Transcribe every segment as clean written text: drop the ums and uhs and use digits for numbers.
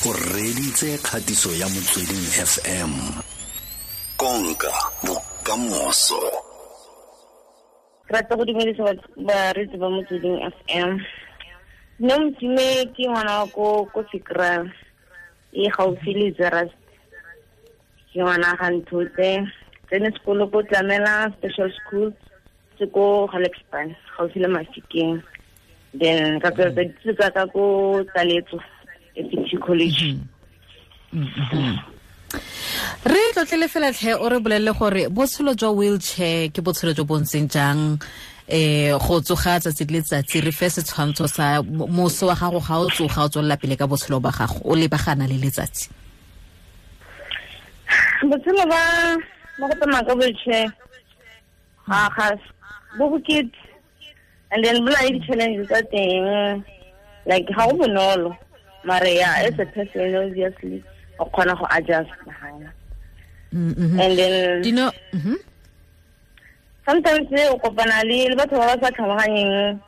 O reditse kgatiso ya Motsweding FM. Konka bokamoso. Rata go dumedisa bareetsi ba Motsweding FM. Nna Motime ke ngwana wa ko Sekra e gaufi le Zeerust. Ke ngwana ga Nthotse, tsene sekolo ko Tlamela Special School, se ko Gelukspan, gaufi le Mafikeng. Then ka tsweletsa dithuto tsa ka ko Taletso FT College. Re tlotlele fela tlhe, o re bolelele gore botshelo jwa wheelchair ke botshelo jo bo ntseng jang, go tsoga tsatsi le letsatsi. Re fe setshwantsho sa moso wa gago ga o tsoga o tswelela pele ka botshelo ba gago, o lebagana le letsatsi. Botshelo ba go tsamaya ka wheelchair ga bo bokete, and then bo na le di-challenges tsa teng, like ga go bonolo, mare ya as a person obviously o kgona go adjust. And then sometimes o kopana le batho ba ba sa tlhaloganyeng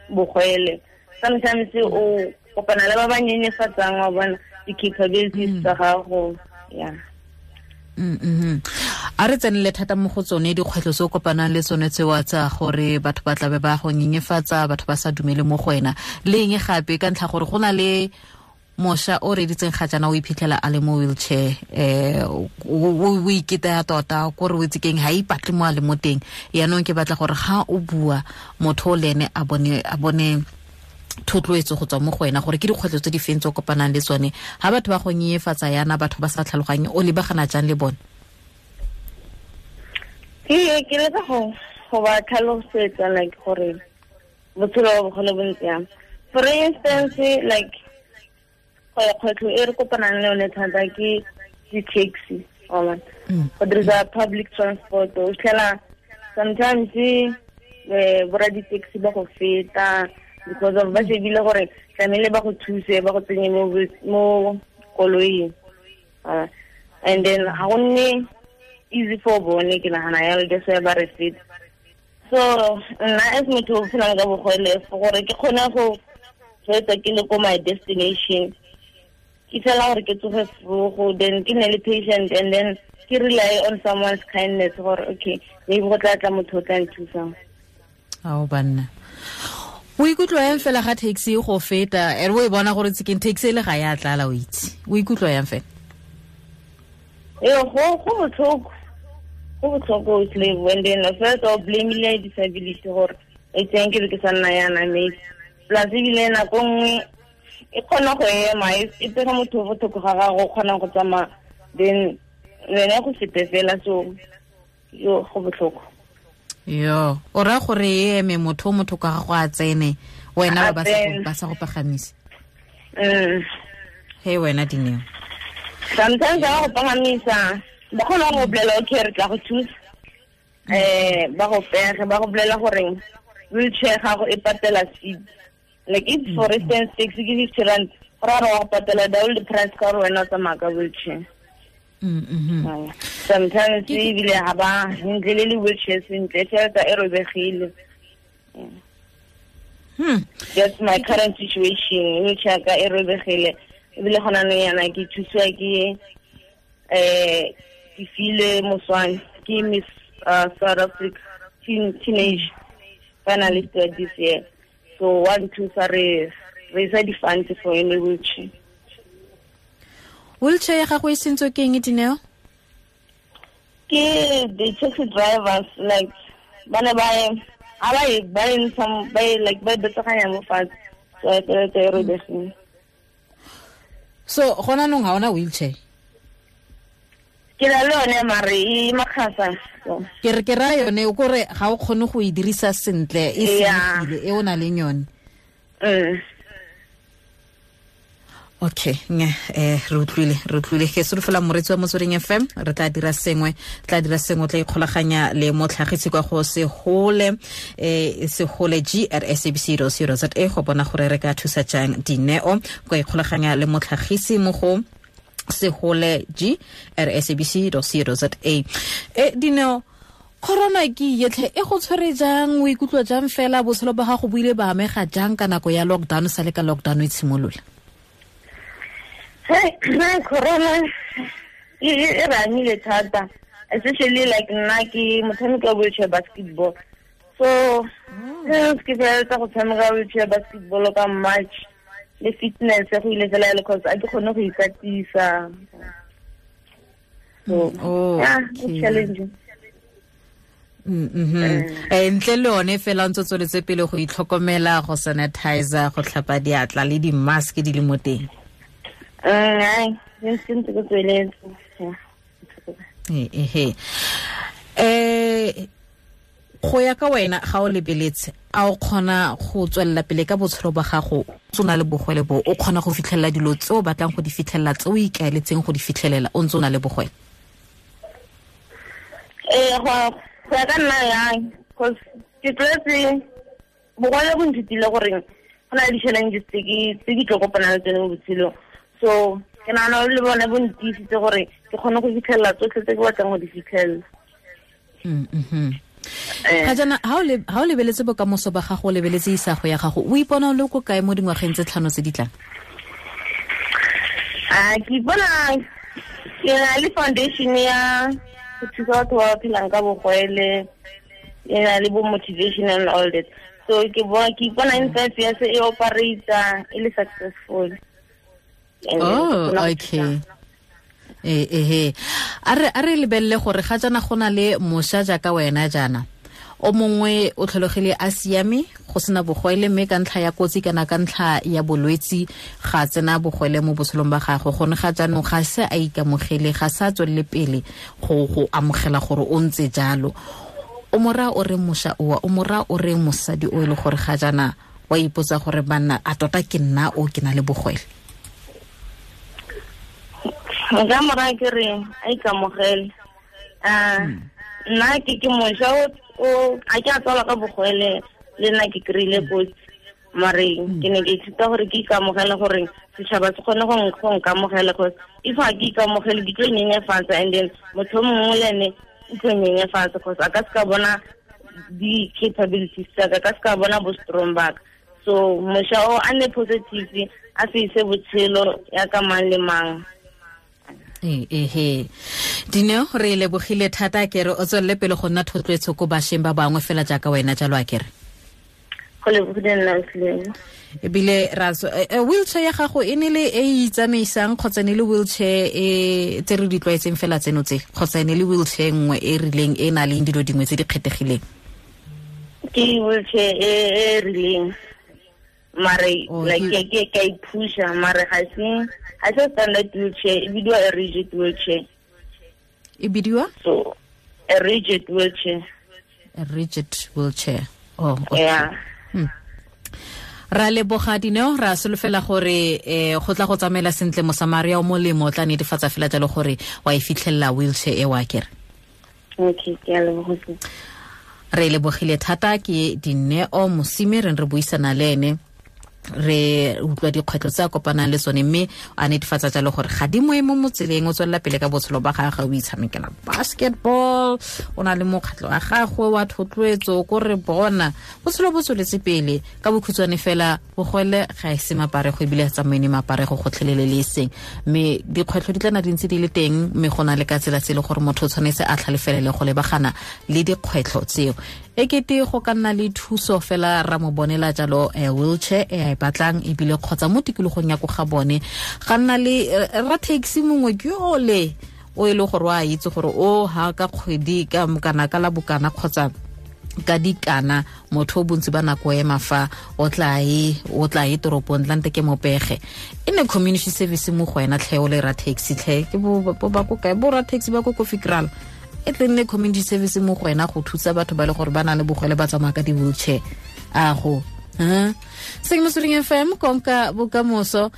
bogwele, sometimes o kopana le ba ba nyenyefatsang wa bona di-capabilities tsa gago. Yeah. A re tsenele thata mo go tsone dikgwetlho tse o kopanang le tsone tsewa tsa gore batho ba tlabe ba go nyenyefatsa, batho ba sa dumele mo go wena, le eng gape ka ntlha gore go na le mosha o reditseng ga jaana o iphitlhela a le mo wheelchair, o iketaya tota kore o itse keng, ha ipatle mo a le mo teng. Yaanong ke batla gore ga o bua motho o le ene a bone thotloetso go tswa mo go wena gore ke dikgwetlho tse di feng tse o kopanang le tsone ha batho ba go nyenyefatsa yana, batho ba sa tlhaloganye, o lebagana jang le bone? Ke leka go ba tlhalosetsa like gore botshelo ba bogole bo ntse jang. For instance, like kgwetlho e re kopanang le yone thata ke di-taxi, go dirisa public transport. O fitlhela sometimes borra di-taxi ba go feta because of ba shebile gore tlamehile ba go thuse, ba go tsenye mo koloing. And then ga go nne easy for bone, ke nagana yalo, that's why ba re feta. So nna as motho o phelang ka bogole, gore ke kgone go fetsa ke le ko my destination, ke fela gore ke tsoge vroeg, then ke nne le patient, and then ke rely on someone's kindness gore okay, maybe go tla tla motho o tla nthusang. Ao banna, o ikutlwa yang fela ga taxi go feta, ere o e bona gore tsekeng taxi le ga ya tlala, o itse o ikutlwa yang fela? Ee, go botlhoko, go botlhoko slave. And then first o blame le disability gore e tseng ke be ke sa nna yana, maybe plus ebile nako nngwe e kgona go ema e pega motho o botlhoko ga gago o kgonang go tsamaya, then wena go fete fela, so yo go botlhoko. Yo, o raya gore e eme motho ka gago a tsene, wena ba sa go pagamise. Hey wena Dineo, sometimes ba go pagamisa, ba kgona go bolela okay re tla go thusa, ba go pege, ba go bolela gore wheelchair gago e patela seat. Like if for instance taxi ke 50 rand, go raya gore wa go patela double the price ka gore wena o tsamaya ka wheelchair. Sometimes ebile ga ba ntle le wheelchair sentle, tšhelete e robegile. That's my current situation, wheelchair ka e robegile, ebile gona nou yana ke thusiwa ke ke file Moswane, ke Miss South Africa teenage finalist this year. So 1 2 sa re isa di-funds for any wheelchair. Wheelchair ya gago e sentswe ke eng, Dineo? Ke the taxi drivers, like ba ne ba like ba betsaganya mo fatshe, so e feletse e robegile. So gona nong ga ona wheelchair? Ke na le yone mare e makgasa. Ke re ke raya yone o kore ga o kgone go e dirisa sentle, e senyegile e o na leng yone. Okay, re utlwile ke solofela moretsi wa Motsweding FM, re tla dira sengwe, tla ikgolaganya le motlhagisi kwa go Segole, Segole G at sabc.co.za go bona gore re ka thusa jang Dineo, go ikgolaganya le motlhagisi mo go Segole G at sabc.co.za. Dineo, corona ke yetlhe e go tshwere jang, o ikutlwa jang fela, botshelo ba gago bo ile ba amega jang ka nako ya lockdown, sa le ka lockdown e tshimolola? Hey, corona e re amile thata, especially like nna ke motshameko wa wheelchair basketball. So ke feleletsa go tshameka wheelchair basketball ka March, le fitness go ile fela le cause a ke kgone go ikatisa. So yeah, it's challenging. Ntle le one fela ntse tsweletse pele go itlhokomela, go sanitizer, go tlhapa diatla le di-mask di le mo teng. Go ya ka wena ga o lebeletse, a o kgona go tswelela pele ka botshelo ba gago o na le bogwele bo, o kgona go fitlhelela dilo tse o batlang go di fitlhelela, tse o ikaeletseng go di fitlhelela o ntse o na le bogwele? Go ya ka nna yang, cause ke tlwaetse bogwele bo nthutile gore go na le di-challenges tse ke tlo kopanang le tsone mo botshelong. So ke nagana le bone bo ntiisitse gore ke kgone go fitlhelela tsotlhe tse ke batlang go di fitlhelela. Ga jaana ha o lebeletse bokamoso ba gago, o lebeletse isago ya gago, o ipona o le ko kae mo dingwageng tse 5 tse di tlang? Ke ipona ke na le foundation ya go thusa batho ba ba phelang ka bogwele, e na le bo motivation and all that. So ke ipona in 5 years e operate e le successful. Oh, okay. A re lebelele gore ga jaana go na le mošwa jaaka wena jaana, o mongwe o tlhologile a siame go sena bogwele, mme ka ntlha ya kotsi kana ka ntlha ya bolwetsi ga tsena bogwele mo botshelong ba gagwe, gone ga jaanong ga se a ikamogele, ga sa tswelele pele go amogela gore o ntse jalo. O mora o re mošwa oa, o mora o re mosadi o e le gore ga jaana wa ipotsa gore banna a tota ke nna o ke na le bogwele? Nka mora ke re a ikamogele. Nna ke mošwa o a ke a tswalwa ka bogwele, le nna ke kry-ile kotsi, mare ke ne ke ithuta gore ke ikamogele gore setšhaba se kgone go nkamogela, cause if ga ke ikamogele ke tlo nyenyefatsa, and then motho o mongwe le ene o tlo nyenyefatsa, cause a ka se ka bona di-capabilities tsaka, a ka se ka bona bo strong baka. So mošwa o a nne positive, a se ise botshelo ya ka mang le mang. Dineo, re lebogile thata, ke re o tswelele pele go nna thotloetso ko bašweng ba bangwe fela jaaka wena jalo, a kere? Go lebogile nna Sleng. Ebile ra wheelchair ya gago e ne le e itsamaisang kgotsa ne le wheelchair e tse re di tlwaetseng fela tseno tse, kgotsa ne le wheelchair nngwe e rileng e na leng dilo dingwe tse di kgethegileng? Ke wheelchair e rileng, mare like ke ka iphusha, mare ga se standard wheelchair, e bidiwa a rigid wheelchair. E bidiwa? So a rigid wheelchair. A rigid wheelchair. Oh, okay. Yeah. Ra leboga Dineo, ra solofela gore go tla go tsamaela sentle, Mosamaria o molemo o tla netefatsa fela jalo gore wa e fitlhelela wheelchair e wa kere. Okay, ke a leboga. Re lebogile thata ke Dineo Mosime, re buisana le ene, re utlwa dikgwetlho tse a kopanang le tsone, mme a netefatsa jalo gore ga di moe mo motseleng, o tswelela pele ka botshelo ba gagwe, o itshamekela basketball, o na le mokgatlho wa gagwe wa thotloetso, ko re bona botshelo bo tsweletse pele. Ka bokhutshwane fela, bogwele ga e se maparego, ebile tsamaine maparego gotlhelele le eseng, mme dikgwetlho di tlana di ntse di le teng, mme go na le ka tsela tse e le gore motho o tshwanetse a tlhalefelele go lebagana le dikgwetlho tseo. E kete go ka nna le thuso fela ra mo bonela jalo wheelchair e a e batlang, ebile kgotsa mo tikologong ya ko ga bone ga nna le ra taxi mongwe ke ole o e le gore wa itse gore o ha ka kgwedi ka kana ka la bokana kgotsa ka dikana, motho o bontsi ba nako ema fa o tla e toropong tlante ke mopege, e ne community service mo go wena tlhe o le ra taxi tlhe ke bo ba ko kae bo ra taxi ba ko Kofi Kraal, e tle nne community service mo go wena go thusa batho ba le gore ba na le bogwele ba tsamaya ka di-wheelchair. A go Seng Motsweding FM, konka bokamoso.